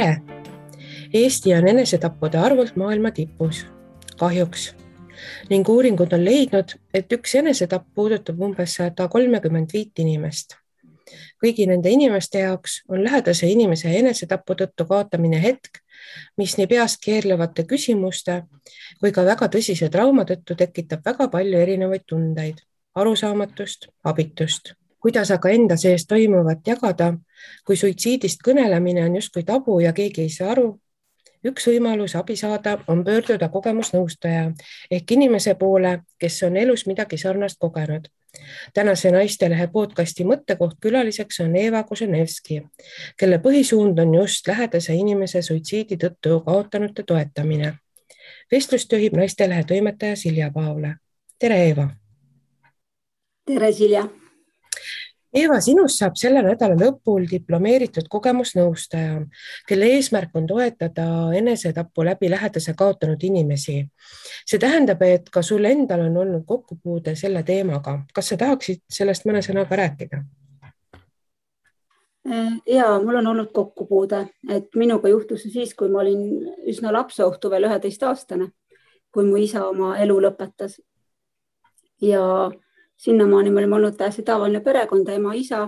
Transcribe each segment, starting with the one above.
Tere! Eesti on enesetappude arvult maailma tipus, kahjuks. Ning uuringud on leidnud, et üks enesetapp puudutab umbes 135 inimest. Kõigi nende inimeste jaoks on lähedase inimese enesetapu tõttu kaotamine hetk, mis nii peas keerlevate küsimuste kui ka väga tõsise trauma tõttu tekitab väga palju erinevaid tundeid, arusaamatust, abitust. Kuidas aga enda sees toimuvat jagada, kui suitsiidist kõnelemine on justkui tabu ja keegi ei saa aru? Üks võimalus abi saada on pöörduda kogemusnõustaja ehk inimese poole, kes on elus midagi sarnast kogenud. Tänase Naistelehe podcasti mõttekoht külaliseks on Eva Koženevski, kelle põhisuund on just lähedase inimese suitsiidi tõttu kaotanute toetamine. Vestlust juhib Naistelehe toimetaja Silja Paavle. Tere, Eva! Tere, Silja! Eva, sinust saab selle nädala lõpul diplomeeritud kogemusnõustaja, kelle eesmärk on toetada enesetapu läbi lähedase kaotanud inimesi. See tähendab, et ka sul endal on olnud kokkupuude selle teemaga. Kas sa tahaksid sellest mõne sõnaga rääkida? Jaa, mul on olnud kokkupuude, et minuga juhtus siis, kui ma olin üsna lapseohtu veel 11-aastane, kui mu isa oma elu lõpetas. Ja sinnamaani me olime olnud täiesti tavaline perekond, ema, isa.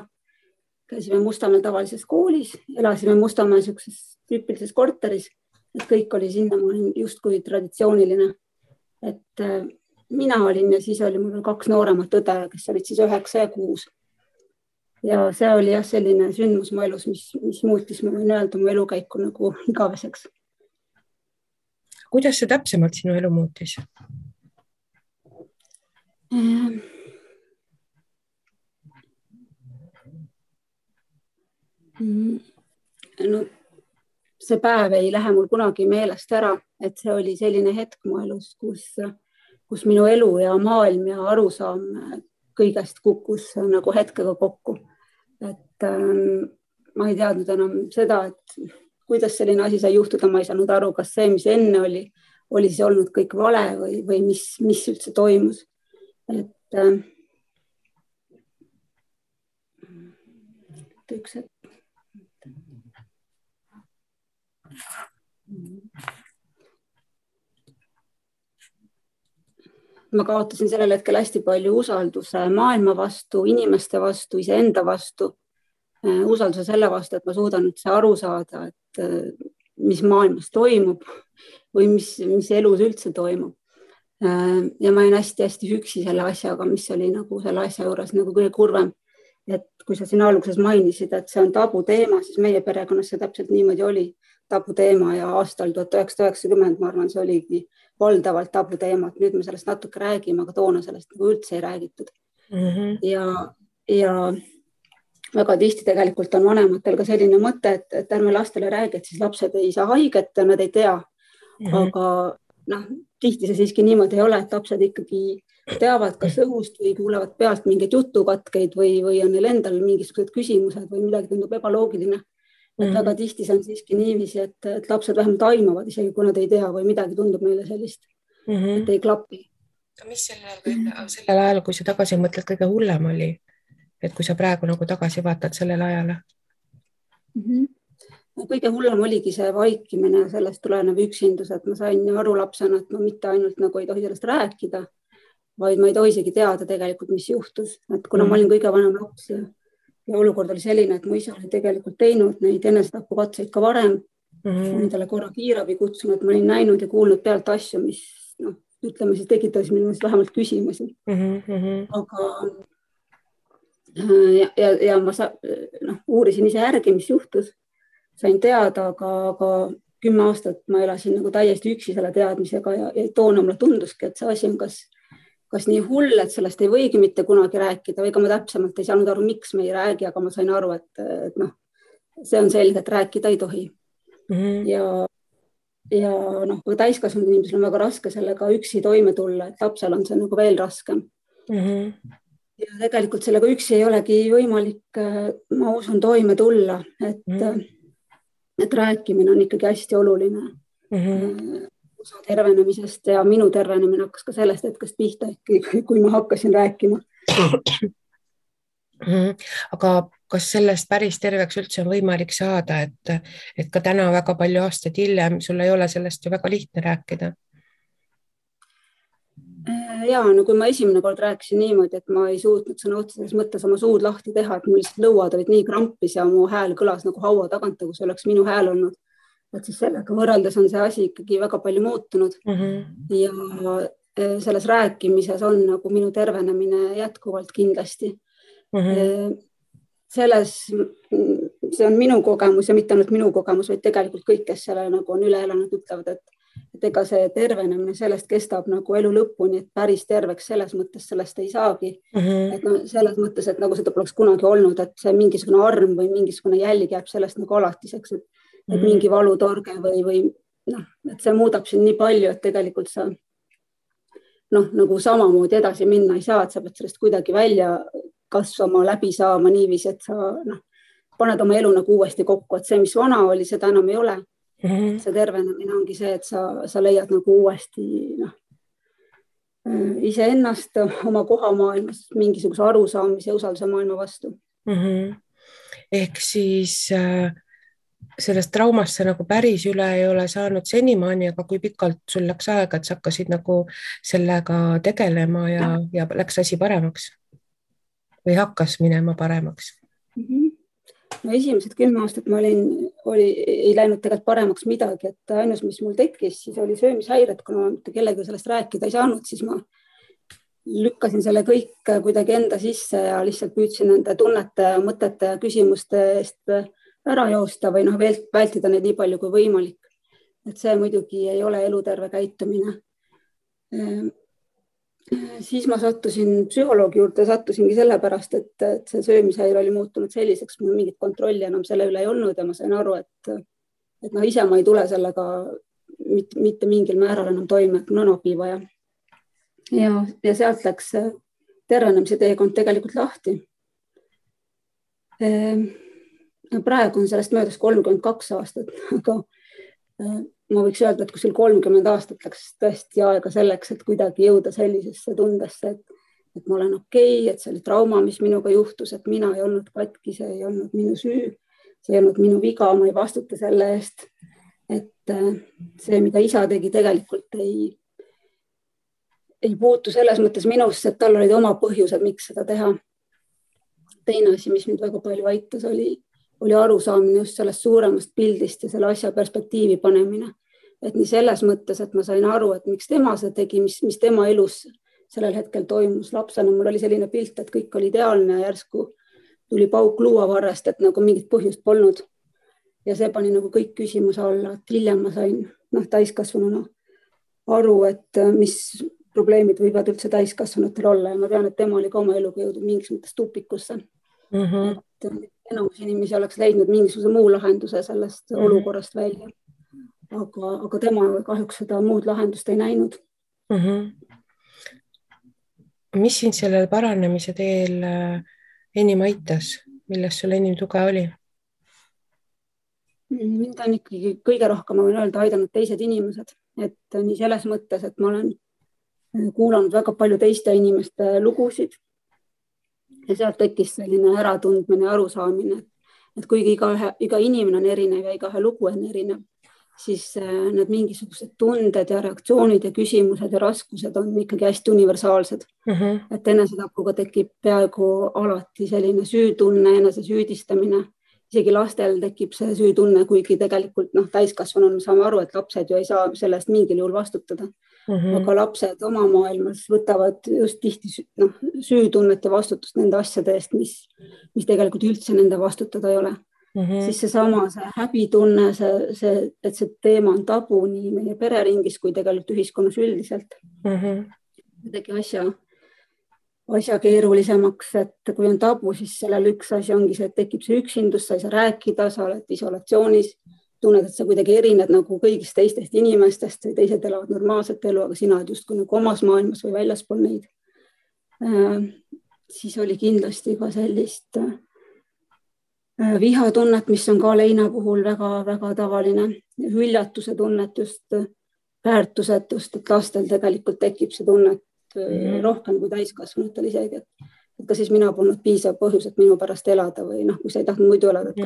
Käisime Mustamäel tavalises koolis, elasime Mustamäel sellises tüüpilises korteris, et kõik oli sinnamaani justkui traditsiooniline. Et mina olin ja siis oli mul 2 nooremat õde, kes olid siis 9 ja 6. Ja see oli selline sündmus mu elus, mis muutis, ma võin öelda, mu elukäiku nagu igaveseks. Kuidas see täpsemalt sinu elu muutis? No, see päev ei lähe mul kunagi meelest ära, et see oli selline hetk mu elus, kus minu elu ja maailm ja arusaam kõigest kukkus nagu hetkega kokku. Et ma ei teadnud enam seda, et kuidas selline asi sai juhtuda, ma ei saanud aru, kas see, mis enne oli siis olnud kõik vale või mis üldse toimus. Et üks hetk. Ma kaotasin sellel hetkel hästi palju usalduse maailma vastu, inimeste vastu, iseenda vastu, usalduse selle vastu, et ma suudan üldse aru saada, et mis maailmas toimub või mis elus üldse toimub. Ja ma olin hästi üksi selle asjaga, mis oli nagu selle asja juures nagu kõige kurvem. Et kui sa siin alguses mainisid, et see on tabu teema, siis meie perekonnas see täpselt niimoodi oli tabu teema ja aastal 1990, ma arvan, see oligi valdavalt tabu teema, et nüüd me sellest natuke räägime, aga toona sellest nagu üldse ei räägitud. Ja väga tihti tegelikult on vanematel ka selline mõte, et ärme lastele räägi, et siis lapsed ei saa haiget ja nad ei tea. Aga tihti see siiski niimoodi ei ole, et lapsed ikkagi teavad kas õhust või kuulevad pealt mingeid jutukatkeid või on neil endal mingisugused küsimused või midagi tundub ebaloogiline. Et väga tihti see on siiski niiviisi, et lapsed vähemalt aimavad, isegi kui nad ei tea või midagi tundub neile sellist, et ei klapi. Mis sellel ajal, kui sa tagasi mõtled, kõige hullem oli? Et kui sa praegu nagu tagasi vaatad sellele ajale? Kõige hullem oligi see vaikimine ja sellest tulenev üksindus, et ma sain aru lapsena, et ma mitte ainult nagu ei tohi sellest rääkida, vaid ma ei tohi isegi teada tegelikult, mis juhtus. Et kuna ma olin kõige vanem laps ja olukord oli selline, et mu isa oli tegelikult teinud neid enesetapukatseid ka varem. Ma olin talle korra kiirabi kutsunud, ma olin näinud ja kuulnud pealt asju, mis ütleme siis tekitas minust vähemalt küsimusi. Aga ja ma uurisin ise järgi, mis juhtus. Sain teada, aga 10 aastat ma elasin nagu täiesti üksi selle teadmisega ja toona mulle tunduski, et see asi on kas nii hull, et sellest ei võigi mitte kunagi rääkida või ka ma täpsemalt ei saanud aru, miks me ei räägi, aga ma sain aru, et see on selge, et rääkida ei tohi. Ja täiskasvanud inimesel on väga raske sellega üksi toime tulla, et lapsel on see nagu veel raskem. Ja tegelikult sellega üksi ei olegi võimalik, ma usun, toime tulla, et rääkimine on ikkagi hästi oluline. Osa tervenemisest ja minu tervenemine hakkas ka sellest hetkest pihta, kui ma hakkasin rääkima. Aga kas sellest päris terveks üldse on võimalik saada, et ka täna väga palju aastaid hiljem sul ei ole sellest ju väga lihtne rääkida? Ja, no kui ma esimene kord rääkisin niimoodi, et ma ei suutnud sõna otseses mõttes oma suud lahti teha, et mul lihtsalt lõuad olid nii krampis ja mu hääl kõlas nagu haua tagant, nagu see oleks minu hääl olnud. Et siis sellega võrreldes on see asi ikkagi väga palju muutunud. Ja selles rääkimises on nagu minu tervenemine jätkuvalt kindlasti. See on minu kogemus ja mitte ainult minu kogemus, vaid tegelikult kõik, kes selle nagu on üle elanud, ütlevad, et ega see tervenemine sellest kestab nagu elu lõpuni, et päris terveks selles mõttes sellest ei saagi. Et no, selles mõttes, et nagu seda poleks kunagi olnud, et see mingisugune arm või mingisugune jälg jääb sellest nagu alatiseks, et mingi valutorge või noh, et see muudab siin nii palju, et tegelikult sa nagu samamoodi edasi minna ei saa, et sa pead sellest kuidagi välja kasvama, läbi saama niiviisi, et sa paned oma elu nagu uuesti kokku, et see, mis vana oli, seda enam ei ole. See tervenemine ongi see, et sa leiad nagu uuesti iseennast, oma koha maailmas, mingisuguse arusaamise ja usalduse maailma vastu. Ehk siis sellest traumast sa nagu päris üle ei ole saanud senimaani, aga kui pikalt sul läks aega, et sa hakkasid nagu sellega tegelema ja läks asi paremaks või hakkas minema paremaks? No esimesed 10 aastat ma ei läinud tegelikult paremaks midagi, et ainus, mis mul tekkis, siis oli söömishäired, kuna ma kellega sellest rääkida ei saanud, siis ma lükkasin selle kõik kuidagi enda sisse ja lihtsalt püüdsin nende tunnete, mõtete ja küsimuste eest ära joosta või vältida neid nii palju kui võimalik. Et see muidugi ei ole eluterve käitumine. Siis ma sattusin psühholoogi juurde, sattusingi sellepärast, et see söömishäire oli muutunud selliseks, mul mingit kontrolli enam selle üle ei olnud ja ma sain aru, et ise ma ei tule sellega mitte mingil määral enam toime, et mul on abi vaja. Ja sealt läks tervenemise teekond tegelikult lahti. Praegu on sellest möödas 32 aastat, aga ma võiks öelda, et kuskil 30 aastat läks tõesti aega selleks, et kuidagi jõuda sellisesse tundesse, et ma olen okei, et see oli trauma, mis minuga juhtus, et mina ei olnud katki, see ei olnud minu süü, see ei olnud minu viga, ma ei vastuta selle eest, et see, mida isa tegi, tegelikult ei puutu selles mõttes minusse, et tal olid oma põhjused, miks seda teha. Teine asi, mis mind väga palju aitas, oli arusaamine just sellest suuremast pildist ja selle asja perspektiivi panemine. Et nii selles mõttes, et ma sain aru, et miks tema see tegi, mis tema elus sellel hetkel toimus lapsena. Mul oli selline pilt, et kõik oli ideaalne ja järsku tuli pauk luuavarrest, et nagu mingit põhjust polnud. Ja see pani nagu kõik küsimuse alla, et hiljem ma sain täiskasvanuna aru, et mis probleemid võivad üldse täiskasvanutel olla ja ma tean, et tema oli ka oma eluga jõudnud mingis mõttes tupikusse. Et enamus inimesi oleks leidnud mingisuguse muu lahenduse sellest olukorrast välja. Aga tema kahjuks seda muud lahendust ei näinud. Mis sind sellel paranemise teel enim aitas? Milles sul enim tuge oli? Mind on ikkagi kõige rohkem, ma võin öelda, aidanud teised inimesed. Et nii selles mõttes, et ma olen kuulanud väga palju teiste inimeste lugusid ja sealt tekkis selline äratundmine ja arusaamine, et kuigi iga inimene on erinev ja iga lugu on erinev, siis need mingisugused tunded ja reaktsioonid ja küsimused ja raskused on ikkagi hästi universaalsed. Et enesetapuga tekib peaaegu alati selline süütunne, enese süüdistamine. Isegi lastel tekib see süütunne, kuigi tegelikult täiskasvanuna me saame aru, et lapsed ju ei saa sellest mingil juhul vastutada. Aga lapsed oma maailmas võtavad just tihti süütunnet ja vastutust nende asjade eest, mis tegelikult üldse nende vastutada ei ole. Siis see häbitunne, et see teema on tabu nii meie pereringis kui tegelikult ühiskonnas üldiselt. Tegi asja keerulisemaks, et kui on tabu, siis sellel üks asi ongi see, et tekib see üksindus, sa ei saa rääkida, sa oled isolatsioonis, tunned, et sa kuidagi erined nagu kõigist teistest inimestest või teised elavad normaalset elu, aga sina oled justkui nagu omas maailmas või väljaspool neid. Siis oli kindlasti ka sellist vihatunnet, mis on ka leina puhul väga-väga tavaline. Hüljatuse tunnet, just väärtusetust, et lastel tegelikult tekib see tunnet rohkem kui täiskasvanutel isegi. et kas siis mina polnud piisav põhjus, et minu pärast elada või kui sa ei tahtnud muidu elada, et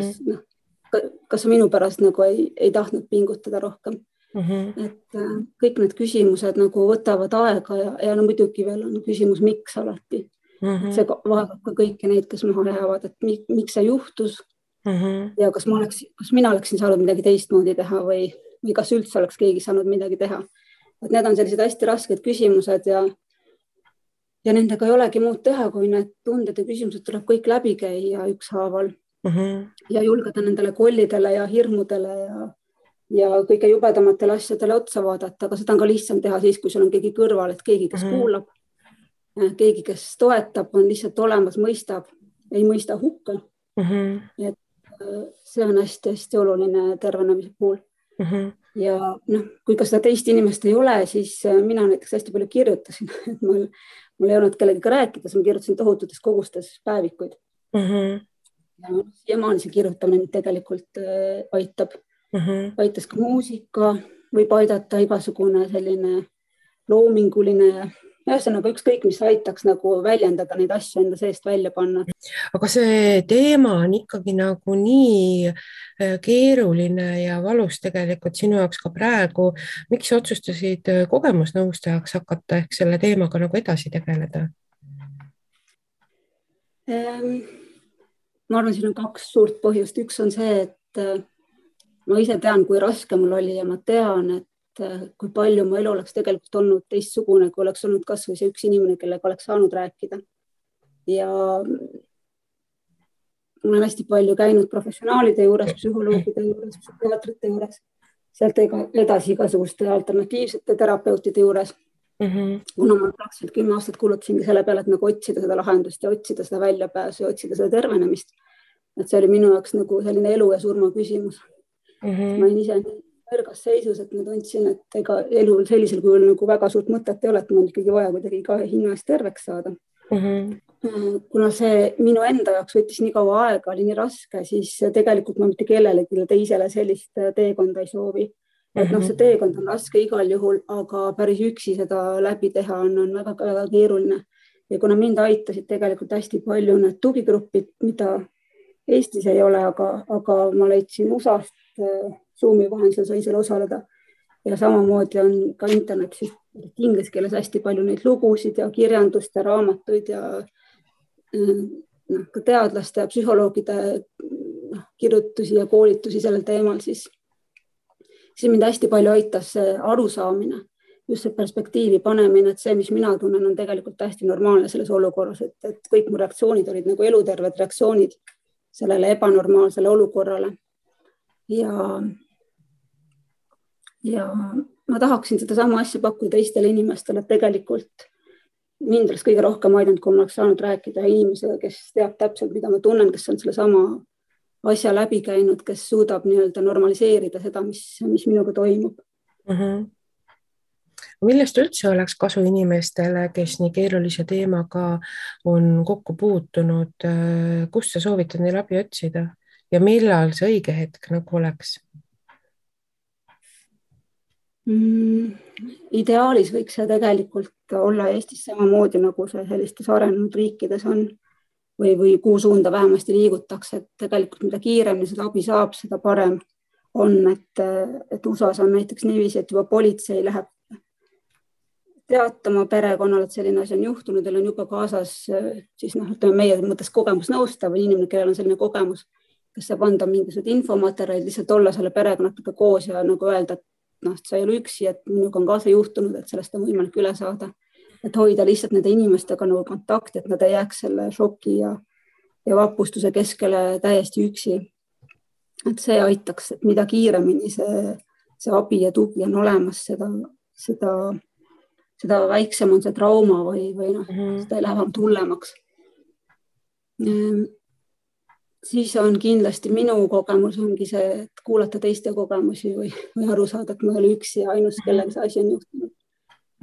kas sa minu pärast nagu ei tahtnud pingutada rohkem. Et kõik need küsimused nagu võtavad aega ja muidugi veel on küsimus, miks alati. See vaevab ka kõiki neid, kes maha jäävad, et miks see juhtus ja kas mina oleksin saanud midagi teistmoodi teha või kas üldse oleks keegi saanud midagi teha. Et need on sellised hästi rasked küsimused ja nendega ei olegi muud teha, kui need tunded ja küsimused tuleb kõik läbi käia ükshaaval ja julgeda nendele kollidele ja hirmudele ja kõige jubedamatele asjadele otsa vaadata, aga seda on ka lihtsam teha siis, kui sul on keegi kõrval, et keegi, kes kuulab, keegi, kes toetab, on lihtsalt olemas, mõistab, ei mõista hukka. Et see on hästi-hästi oluline tervenemise puhul. Ja kui ka seda teist inimest ei ole, siis mina näiteks hästi palju kirjutasin, et mul ei olnud kellegiga rääkida, ma kirjutasin tohututes kogustes päevikuid. Ja maani see kirjutamine tegelikult aitab. Aitas ka muusika, võib aidata igasugune selline loominguline, ühesõnaga ükskõik, mis aitaks nagu väljendada neid asju enda seest välja panna. Aga see teema on ikkagi nagu nii keeruline ja valus tegelikult sinu jaoks ka praegu. Miks otsustasid kogemusnõustajaks hakata ehk selle teemaga nagu edasi tegeleda? Ma arvan, siin on 2 suurt põhjust. Üks on see, et ma ise tean, kui raske mul oli ja ma tean, et kui palju mu elu oleks tegelikult olnud teistsugune, kui oleks olnud kas või see üks inimene, kellega oleks saanud rääkida. Ja ma olen hästi palju käinud professionaalide juures, psühholoogide juures, psühhiaatrite juures, sealt edasi igasuguste alternatiivsete terapeutide juures. Kuna ma praktiliselt 10 aastat kulutasingi selle peale, et nagu otsida seda lahendust ja otsida seda väljapääsu ja otsida seda tervenemist. Et see oli minu jaoks nagu selline elu ja surma küsimus. Ma olin ise nõrgas seisus, et ma tundsin, et ega elu sellisel kujul nagu väga suurt mõtet ei ole, et mul ikkagi vaja kuidagi ka hinna eest terveks saada. Kuna see minu enda jaoks võttis nii kaua aega, oli nii raske, siis tegelikult ma mitte kellelegi teisele sellist teekonda ei soovi. Et see teekond on raske igal juhul, aga päris üksi seda läbi teha on väga keeruline. Ja kuna mind aitasid tegelikult hästi palju need tugigrupid, mida Eestis ei ole, aga ma leidsin USA-st Zoomi vahendusel sai seal osaleda. Ja samamoodi on ka internetis inglise keeles hästi palju neid lugusid ja kirjandust ja raamatuid ja ka teadlaste ja psühholoogide kirjutusi ja koolitusi sellel teemal, siis mind hästi palju aitas see arusaamine, just see perspektiivi panemine, et see, mis mina tunnen, on tegelikult hästi normaalne selles olukorras, et kõik mu reaktsioonid olid nagu eluterved reaktsioonid sellele ebanormaalsele olukorrale. Ja ma tahaksin seda sama asja pakkuda teistele inimestele, et tegelikult mind oleks kõige rohkem aidanud, kui ma oleks saanud rääkida inimesega, kes teab täpselt, mida ma tunnen, kes on selle sama asja läbi käinud, kes suudab normaliseerida seda, mis minuga toimub. Millest üldse oleks kasu inimestele, kes nii keerulise teemaga on kokku puutunud? Kust sa soovitad neil abi otsida ja millal see õige hetk nagu oleks? Ideaalis võiks see tegelikult olla Eestis samamoodi, nagu see sellistes arenenud riikides on või kuhu suunda vähemasti liigutakse, et tegelikult mida kiiremini seda abi saab, seda parem on, et USA-s on näiteks niiviisi, et juba politsei läheb teatama perekonnale, et selline asi on juhtunud, teil on juba kaasas siis meie mõttes kogemusnõustav või inimene, kellel on selline kogemus, kes saab anda mingisugused infomaterjalid, lihtsalt olla selle perekonnaga koos ja nagu öelda, et sa ei ole üksi, et minuga on kaasa juhtunud, et sellest on võimalik üle saada. Et hoida lihtsalt nende inimestega nagu kontakti, et nad ei jääks selle šoki ja vapustuse keskele täiesti üksi. Et see aitaks, et mida kiiremini see abi ja tugi on olemas, seda väiksem on see trauma või seda ei lähe vähem hullemaks. Siis on kindlasti minu kogemus ongi see, et kuulata teiste kogemusi või aru saada, et ma ei ole üksi ja ainus, kellega see asi on juhtunud.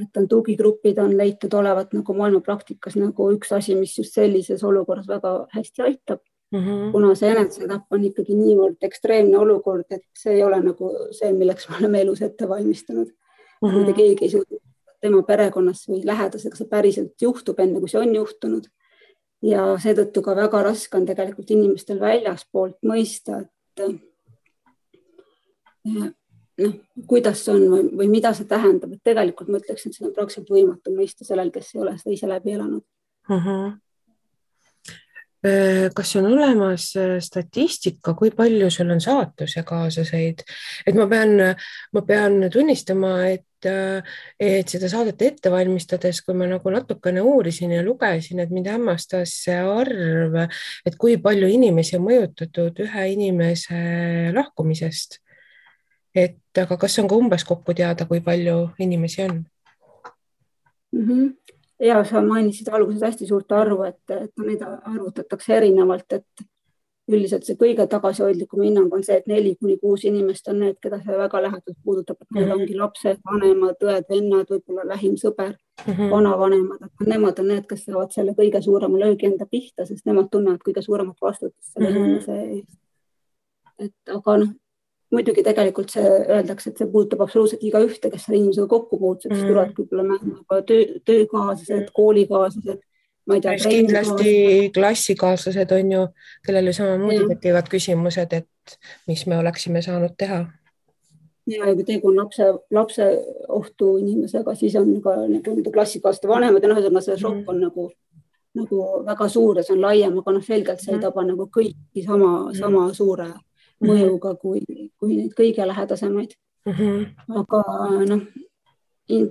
Et on tugigrupid on leitud olevat nagu maailma praktikas nagu üks asi, mis just sellises olukorras väga hästi aitab. Kuna see enesetapp on ikkagi niivõrd ekstreemne olukord, et see ei ole nagu see, milleks me oleme elus ette valmistanud. Mitte keegi ei suuda tema perekonnas või lähedasega see päriselt juhtub enne, kui see on juhtunud. ja seetõttu ka väga raske on tegelikult inimestel väljaspoolt mõista, et kuidas see on või mida see tähendab, et tegelikult ma ütleksin, et see on praktiliselt võimatu mõista sellel, kes ei ole seda ise läbi elanud. Kas on olemas statistika, kui palju sul on saatuse kaasaseid? Et ma pean tunnistama, et seda saadet ette valmistades, kui ma nagu natukene uurisin ja lugesin, et mind hämmastas see arv, et kui palju inimesi on mõjutatud ühe inimese lahkumisest. Aga kas on ka umbes kokku teada, kui palju inimesi on? Ja sa mainisid alguses hästi suurt arvu, et neid arvutatakse erinevalt, et üldiselt see kõige tagasihoidlikum hinnang on see, et 4-6 inimest on need, keda see väga lähedalt puudutab, et need ongi lapsed, vanemad, õed, vennad, võib-olla lähim sõber, vanavanemad, et nemad on need, kes saavad selle kõige suurema löögi enda pihta, sest nemad tunnevad kõige suuremat vastutust selle inimese eest. Et aga muidugi tegelikult see öeldakse, et see puudutab absoluutselt iga ühte, kes selle inimesega kokku puutseb, siis tulevad võib-olla töökaaslased, koolikaaslased, ma ei tea, kindlasti klassikaaslased on ju, kellele samamoodi tekivad küsimused, et mis me oleksime saanud teha. Ja kui tegu on lapse ohtu inimesega, siis on ka klassikaaslaste vanemad ja see šokk on nagu väga suur ja see on laiem, aga selgelt see ei taba nagu kõiki sama suure mõjuga kui neid kõige lähedasemaid. Aga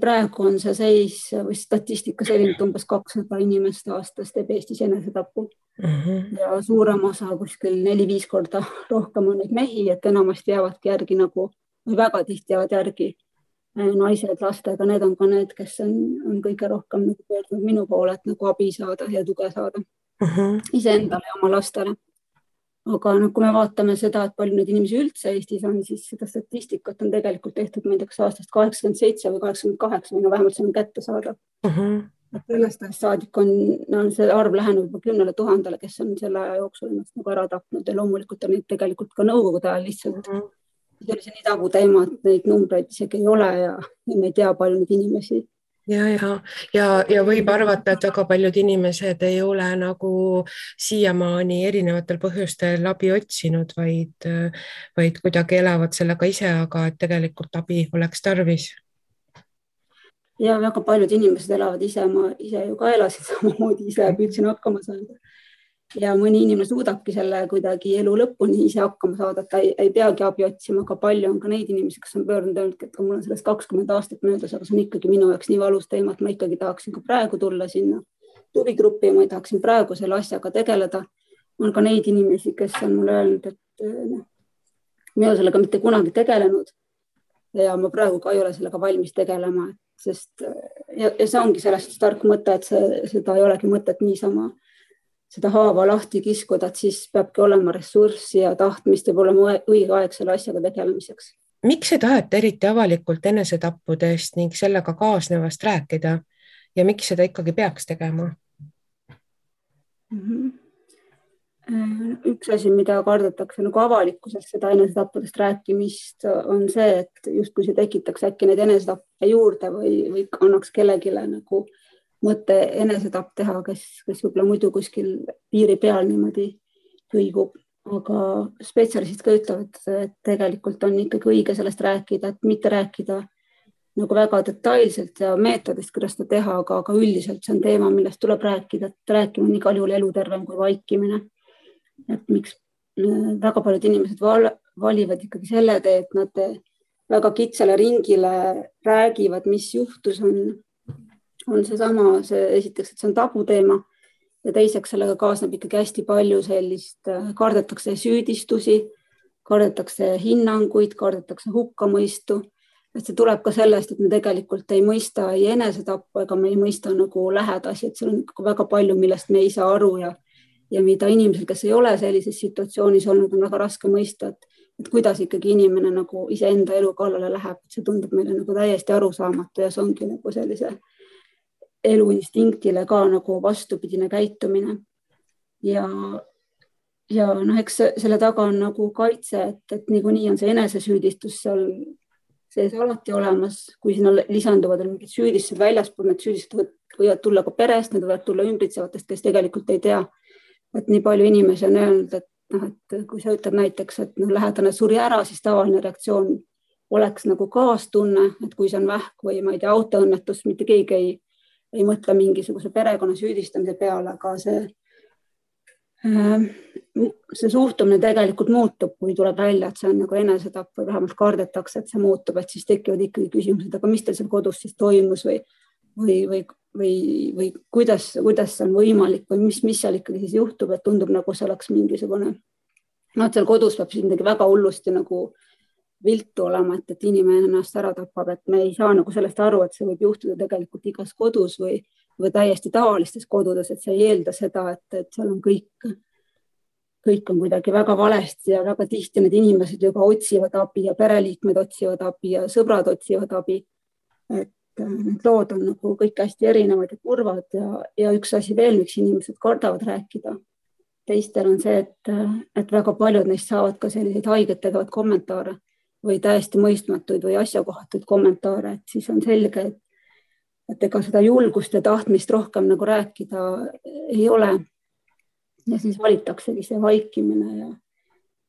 praegu on see seis või statistika selline, et umbes 200 inimest aastas teeb Eestis enesetapu ja suurem osa kuskil 4-5 korda rohkem on neid mehi, et enamasti jäävadki järgi või väga tihti jäävad järgi naised lastega, need on ka need, kes on kõige rohkem pöördunud minu poole, et abi saada ja tuge saada iseendale ja oma lastele. Aga kui me vaatame seda, et palju neid inimesi üldse Eestis on, siis seda statistikat on tegelikult tehtud, ma ei tea, kas aastast 87 või 88 või vähemalt see on kätte saada. Sellest saadik on see arv lähenud juba 10 000, kes on selle aja jooksul ennast ära tapnud ja loomulikult on neid tegelikult ka nõukogude ajal lihtsalt. See oli see nii tabu teema, et neid numbreid isegi ei ole ja me ei tea palju neid inimesi. Ja võib arvata, et väga paljud inimesed ei ole siiamaani erinevatel põhjustel abi otsinud, vaid kuidagi elavad sellega ise, aga et tegelikult abi oleks tarvis. Ja väga paljud inimesed elavad ise, ma ise ju ka elasin samamoodi ise ja püüdsin hakkama saada. Ja mõni inimene suudabki selle kuidagi elu lõpuni ise hakkama saada, et ta ei peagi abi otsima, aga palju on ka neid inimesi, kes on pöördunud, et mul on sellest 20 aastat möödas, aga see on ikkagi minu jaoks nii valus teema, et ma ikkagi tahaksin ka praegu tulla sinna tugigruppi ja ma tahaksin praegu selle asjaga tegeleda. On ka neid inimesi, kes on mulle öelnud, et mina sellega mitte kunagi tegelenud ja ma praegu ka ei ole sellega valmis tegelema, sest ja see ongi sellest tark mõte, et seda ei olegi mõtet niisama seda haava lahti kiskuda, et siis peabki olema ressurssi ja tahtmist ja olema õige aeg selle asjaga tegelemiseks. Miks ei taheta eriti avalikult enesetappudest ning sellega kaasnevast rääkida ja miks seda ikkagi peaks tegema? Üks asi, mida kardetakse avalikkuses seda enesetappudest rääkimist, on see, et justkui see tekitaks äkki neid enesetappe juurde või annaks kellelegi mõte enesetapp teha, kes võib-olla muidu kuskil piiri peal niimoodi kõigub. Aga spetsialistid ka ütlevad, et tegelikult on ikkagi õige sellest rääkida, et mitte rääkida väga detailselt ja meetodist, kuidas seda teha, aga üldiselt see on teema, millest tuleb rääkida, et rääkima on igal juhul elutervem kui vaikimine. Et miks väga paljud inimesed valivad ikkagi selle tee, et nad väga kitsale ringile räägivad, mis juhtus on esiteks, et see on tabuteema ja teiseks sellega kaasneb ikkagi hästi palju sellist, kardetakse süüdistusi, kardetakse hinnanguid, kardetakse hukkamõistu. Et see tuleb ka sellest, et me tegelikult ei mõista ei enesetappu ega me ei mõista lähedasi, et seal on väga palju, millest me ei saa aru ja mida inimesel, kes ei ole sellises situatsioonis olnud, on väga raske mõista, et kuidas ikkagi inimene iseenda elu kallale läheb. See tundub meile täiesti arusaamatu ja see ongi sellise eluinstinktile ka vastupidine käitumine. Ja eks selle taga on kaitse, et niikuinii on see enesesüüdistus seal sees alati olemas, kui sinna lisanduvad mingid süüdistused väljaspool, need süüdistused võivad tulla ka perest, need võivad tulla ümbritsevatest, kes tegelikult ei tea. Et nii palju inimesi on öelnud, et kui sa ütled näiteks, et lähedane suri ära, siis tavaline reaktsioon oleks nagu kaastunne, et kui see on vähk või ma ei tea, autoõnnetus, mitte keegi ei mõtle mingisuguse perekonna süüdistamise peale, aga see suhtumine tegelikult muutub, kui tuleb välja, et see on nagu enesetapp või vähemalt kardetakse, et see muutub, et siis tekivad ikkagi küsimused, aga mis teil seal kodus siis toimus või kuidas see on võimalik või mis seal ikkagi siis juhtub, et tundub nagu see oleks mingisugune, seal kodus peab siis midagi väga hullusti nagu viltu olema, et inimene ennast ära tapab, et me ei saa nagu sellest aru, et see võib juhtuda tegelikult igas kodus või täiesti tavalistes kodudes, et see ei eelda seda, et seal on kõik on kuidagi väga valesti ja väga tihti need inimesed juba otsivad abi ja pereliikmed otsivad abi ja sõbrad otsivad abi. Et need lood on nagu kõik hästi erinevad ja kurvad ja üks asi veel, miks inimesed kardavad rääkida. Teistel on see, et väga paljud neist saavad ka selliseid haiget tegevad kommentaare või täiesti mõistmatuid või asjakohatuid kommentaare, et siis on selge, et ega seda julgust ja tahtmist rohkem nagu rääkida ei ole. Ja siis valitaksegi see vaikimine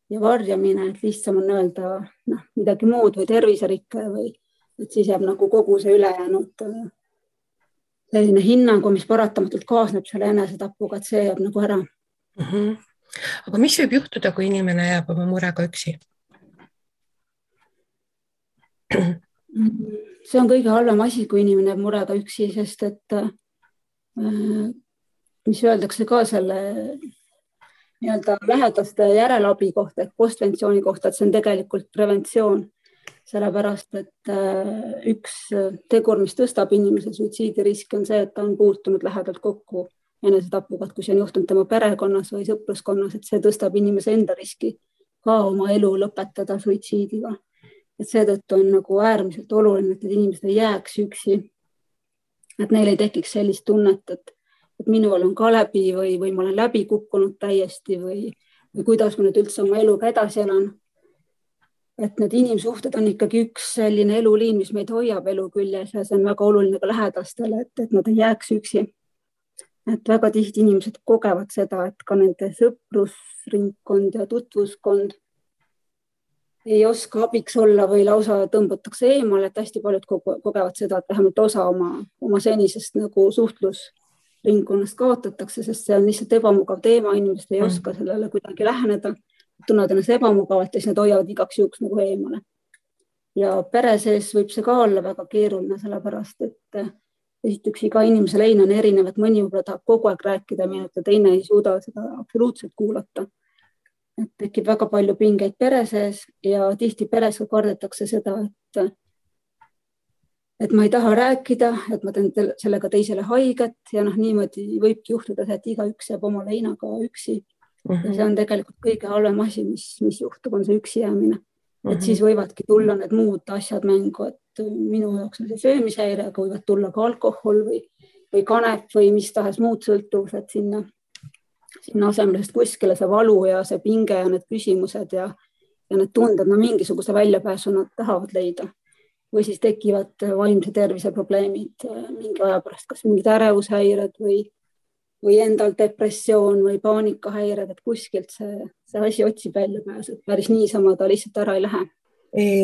ja varjamine, et lihtsam on öelda midagi muud või terviserikke või et siis jääb nagu kogu see ülejäänud selline hinnangu, mis paratamatult kaasneb selle enesetapuga, et see jääb nagu ära. Aga mis võib juhtuda, kui inimene jääb oma murega üksi? See on kõige halvem asi, kui inimene jääb murega üksi, sest et mis öeldakse ka selle nii-öelda lähedaste järelabi kohta, et postventsiooni kohta, et see on tegelikult preventsioon, sellepärast, et üks tegur, mis tõstab inimese suitsiidiriski, on see, et ta on puutunud lähedalt kokku enesetapuga, et kui see on juhtunud tema perekonnas või sõpruskonnas, et see tõstab inimese enda riski ka oma elu lõpetada suitsiidiga. Et seetõttu on nagu äärmiselt oluline, et inimesed ei jääks üksi, et neil ei tekiks sellist tunnet, et minul on ka läbi või ma olen läbi kukkunud täiesti või kuidas ma nüüd üldse oma eluga edasi elan. Et need inimsuhted on ikkagi üks selline eluliin, mis meid hoiab elu küljes ja see on väga oluline ka lähedastele, et nad ei jääks üksi. Et väga tihti inimesed kogevad seda, et ka nende sõprusringkond ja tutvuskond ei oska abiks olla või lausa tõmbutakse eemale, et hästi paljud kogevad seda, et vähemalt osa oma senisest nagu suhtlusringkonnast kaotatakse, sest see on lihtsalt ebamugav teema, inimesed ei oska sellele kuidagi läheneda, tunnevad ennast ebamugavalt ja siis nad hoiavad igaks juhuks nagu eemale. Ja pere sees võib see ka olla väga keeruline, sellepärast, et esiteks iga inimese lein on erinev, et mõni võib-olla tahab kogu aeg rääkida, ja teine ei suuda seda absoluutselt kuulata. Et tekib väga palju pingeid pere sees ja tihti peres kardetakse seda, et ma ei taha rääkida, et ma teen sellega teisele haiget ja niimoodi võibki juhtuda, et igaüks jääb oma leinaga üksi. Ja see on tegelikult kõige halvem asi, mis juhtub, on see üksi jäämine. Et siis võivadki tulla need muud asjad mängu, et minu jaoks on see söömishäire, aga võivad tulla ka alkohol või kanep või mis tahes muud sõltuvused sinna asemel, sest kuskile see valu ja see pinge ja need küsimused ja need tunded, mingisuguse väljapääsu nad tahavad leida. Või siis tekivad vaimse tervise probleemid mingi aja pärast, kas mingid ärevushäired või endal depressioon või paanikahäired, et kuskilt see asi otsib väljapääsu, et päris niisama ta lihtsalt ära ei lähe.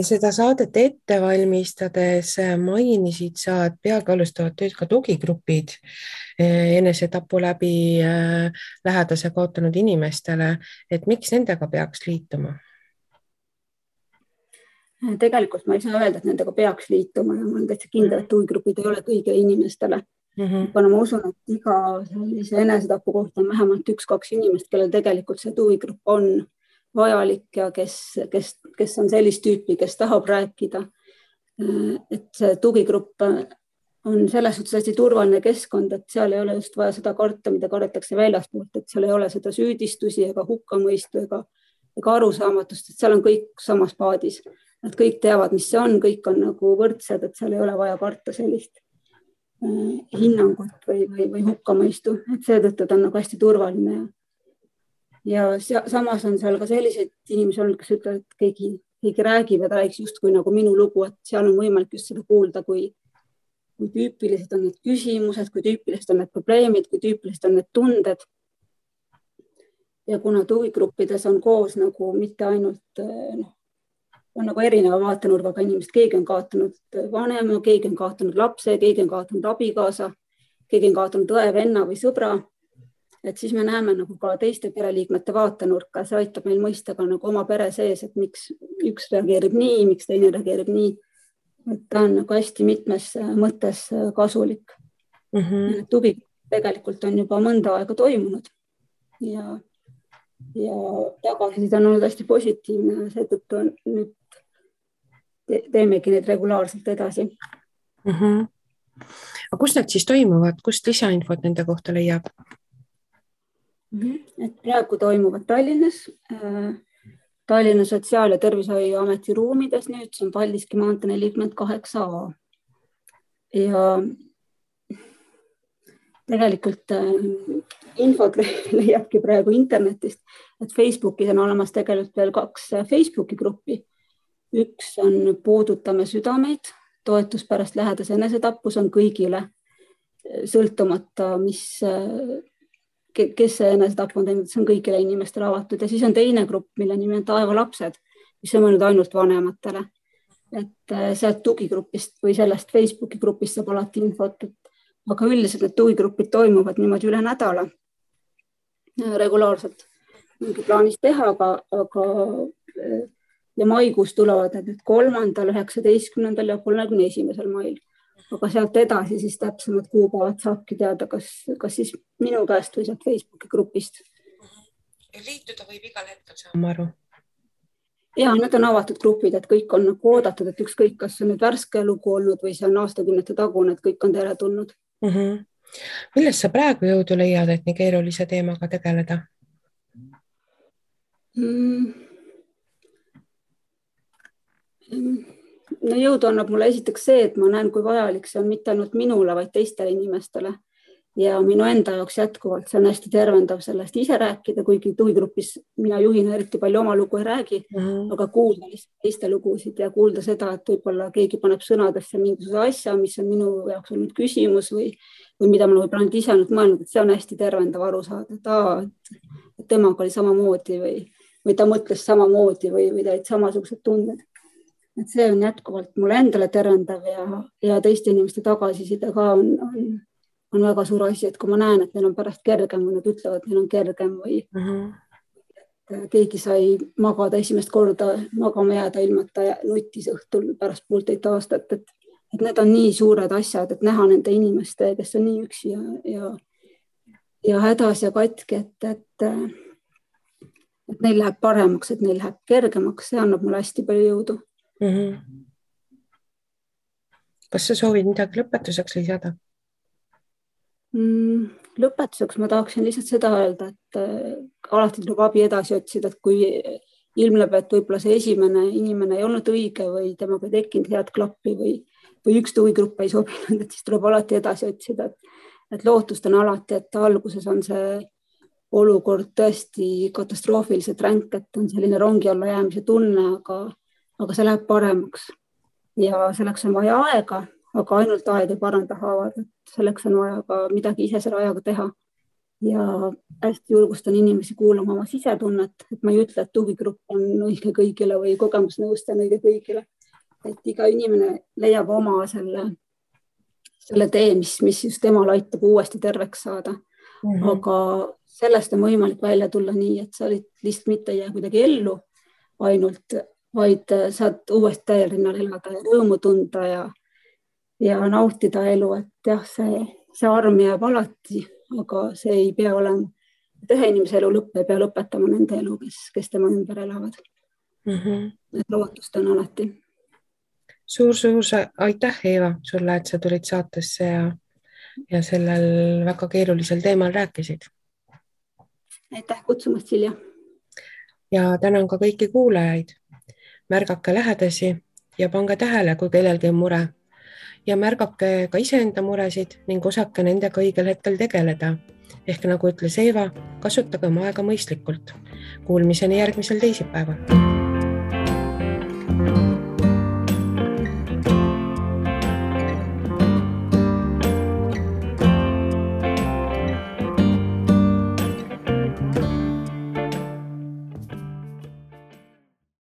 Seda saadet ette valmistades mainisid sa, et peagi alustavad tööd ka tugigrupid enesetapu läbi lähedase kaotanud inimestele, et miks nendega peaks liituma? Tegelikult ma ei saa öelda, et nendega peaks liituma ja ma olen täitsa kindel, et tugigrupid ei ole kõigile inimestele. Aga ma usun, et iga sellise enesetapu kohta on vähemalt 1-2 inimest, kellel tegelikult see tugigrupp on vajalik ja kes on sellist tüüpi, kes tahab rääkida. Et see tugigrupp on selles suhtes hästi turvaline keskkond, et seal ei ole just vaja seda karta, mida kardetakse väljaspoolt, et seal ei ole seda süüdistusi ega hukkamõistu ega arusaamatust, et seal on kõik samas paadis. Nad kõik teavad, mis see on, kõik on nagu võrdsed, et seal ei ole vaja karta sellist hinnangut või hukkamõistu, et seetõttu ta on nagu hästi turvaline. Ja samas on seal ka selliseid inimesi olnud, kes ütlevad, et keegi räägib ja ta räägiks justkui nagu minu lugu, et seal on võimalik just seda kuulda, kui tüüpilised on need küsimused, kui tüüpilised on need probleemid, kui tüüpilised on need tunded. Ja kuna tugigruppides on koos nagu mitte ainult on nagu erineva vaatenurgaga inimesed, keegi on kaotanud vanema, keegi on kaotanud lapse, keegi on kaotanud abikaasa, keegi on kaotanud õe, venna või sõbra. Et siis me näeme nagu ka teiste pereliikmete vaatenurka, see aitab meil mõista ka nagu oma pere sees, et miks üks reageerib nii, miks teine reageerib nii. Et ta on nagu hästi mitmes mõttes kasulik. Tugi tegelikult on juba mõnda aega toimunud ja tagasiside on olnud hästi positiivne, seetõttu nüüd teemegi neid regulaarselt edasi. Aga kus need siis toimuvad? Kust lisainfot nende kohta leiab? Et praegu toimuvad Tallinnas, Tallinna Sotsiaal- ja Tervishoiuameti ruumides, nüüd see on Paldiski maantee 48A. Ja tegelikult infot leiabki praegu internetist, et Facebookis on olemas tegelikult veel 2 Facebooki gruppi. Üks on Puudutame südameid, toetus pärast lähedase enesetappu, see on kõigile, sõltumata, kes see enesetapp on teinud, see on kõigile inimestele avatud. Ja siis on teine grupp, mille nimi on Taeva lapsed, mis on mõeldud ainult vanematele. Et sealt tugigrupist või sellest Facebooki grupist saab alati infot, aga üldiselt need tugigrupid toimuvad niimoodi üle nädala regulaarselt. Mingi plaanis teha, aga ja maikuus tulevad need 3., 19. ja 31. mail. Aga sealt edasi siis täpsemad kuupäevad saabki teada, kas siis minu käest või sealt Facebooki grupist. Liituda võib igal hetkel, saan ma aru. Ja, need on avatud grupid, et kõik on oodatud, et ükskõik, kas on nüüd värske lugu olnud või see on aastakümnete tagune, et kõik on teile tulnud. Millest sa praegu jõudu leiad, et nii keerulise teemaga tegeleda? No jõudu annab mulle esiteks see, et ma näen, kui vajalik see on mitte ainult minule, vaid teistele inimestele. Ja minu enda jaoks jätkuvalt see on hästi tervendav sellest ise rääkida, kuigi tugigrupis mina juhina eriti palju oma lugu ei räägi, aga kuulda teiste lugusid ja kuulda seda, et võib-olla keegi paneb sõnadesse mingisuguse asja, mis on minu jaoks olnud küsimus või mida ma võib-olla nüüd ise olnud mõelnud, et see on hästi tervendav aru saada, et temaga oli samamoodi või ta mõtles samamoodi või ta olid samasugused tunded. Et see on jätkuvalt mulle endale tervendav ja teiste inimeste tagasiside ka on väga suur asi, et kui ma näen, et neil on pärast kergem või nad ütlevad, et neil on kergem või keegi sai magada esimest korda magama jääda ilmata ja nutis õhtul pärast 1,5 aastat, et need on nii suured asjad, et näha nende inimeste, kes on nii üksi ja hädas ja katki, et neil läheb paremaks, et neil läheb kergemaks, see annab mulle hästi palju jõudu. Kas sa soovid midagi lõpetuseks lisada? Lõpetuseks ma tahaksin lihtsalt seda öelda, et alati tuleb abi edasi otsida, et kui ilmneb, et võib-olla see esimene inimene ei olnud õige või temaga ei tekkinud head klappi või üks tugigrupp ei sobinud, et siis tuleb alati edasi otsida, et lootust on alati, et alguses on see olukord tõesti katastroofiliselt ränk, et on selline rongi alla jäämise tunne, aga see läheb paremaks ja selleks on vaja aega, aga ainult aeg ei paranda haavad, et selleks on vaja ka midagi ise selle ajaga teha. Ja hästi julgustan inimesi kuulama oma sisetunnet, et ma ei ütle, et tugigrupp on õige kõigile või kogemusnõustaja on õige kõigile. Et iga inimene leiab oma selle tee, mis just temal aitab uuesti terveks saada. Aga sellest on võimalik välja tulla nii, et sa lihtsalt mitte jää kuidagi ellu ainult, vaid saad uuesti täiel rinnal elada ja rõõmu tunda ja nautida elu, et jah, see arm jääb alati, aga see ei pea olema, et ühe inimese elu lõpp ei pea lõpetama nende elu, kes tema ümber elavad. Et lootust on alati. Suur aitäh, Eeva, sulle, et sa tulid saatesse ja sellel väga keerulisel teemal rääkisid. Aitäh kutsumast, Silja. Ja tänan ka kõiki kuulajaid. Märgake lähedasi ja pange tähele, kui kellelgi on mure. Ja märgake ka iseenda muresid ning osake nendega õigel hetkel tegeleda. Ehk nagu ütles Eeva, kasutage oma aega mõistlikult. Kuulmiseni järgmisel teisipäeval.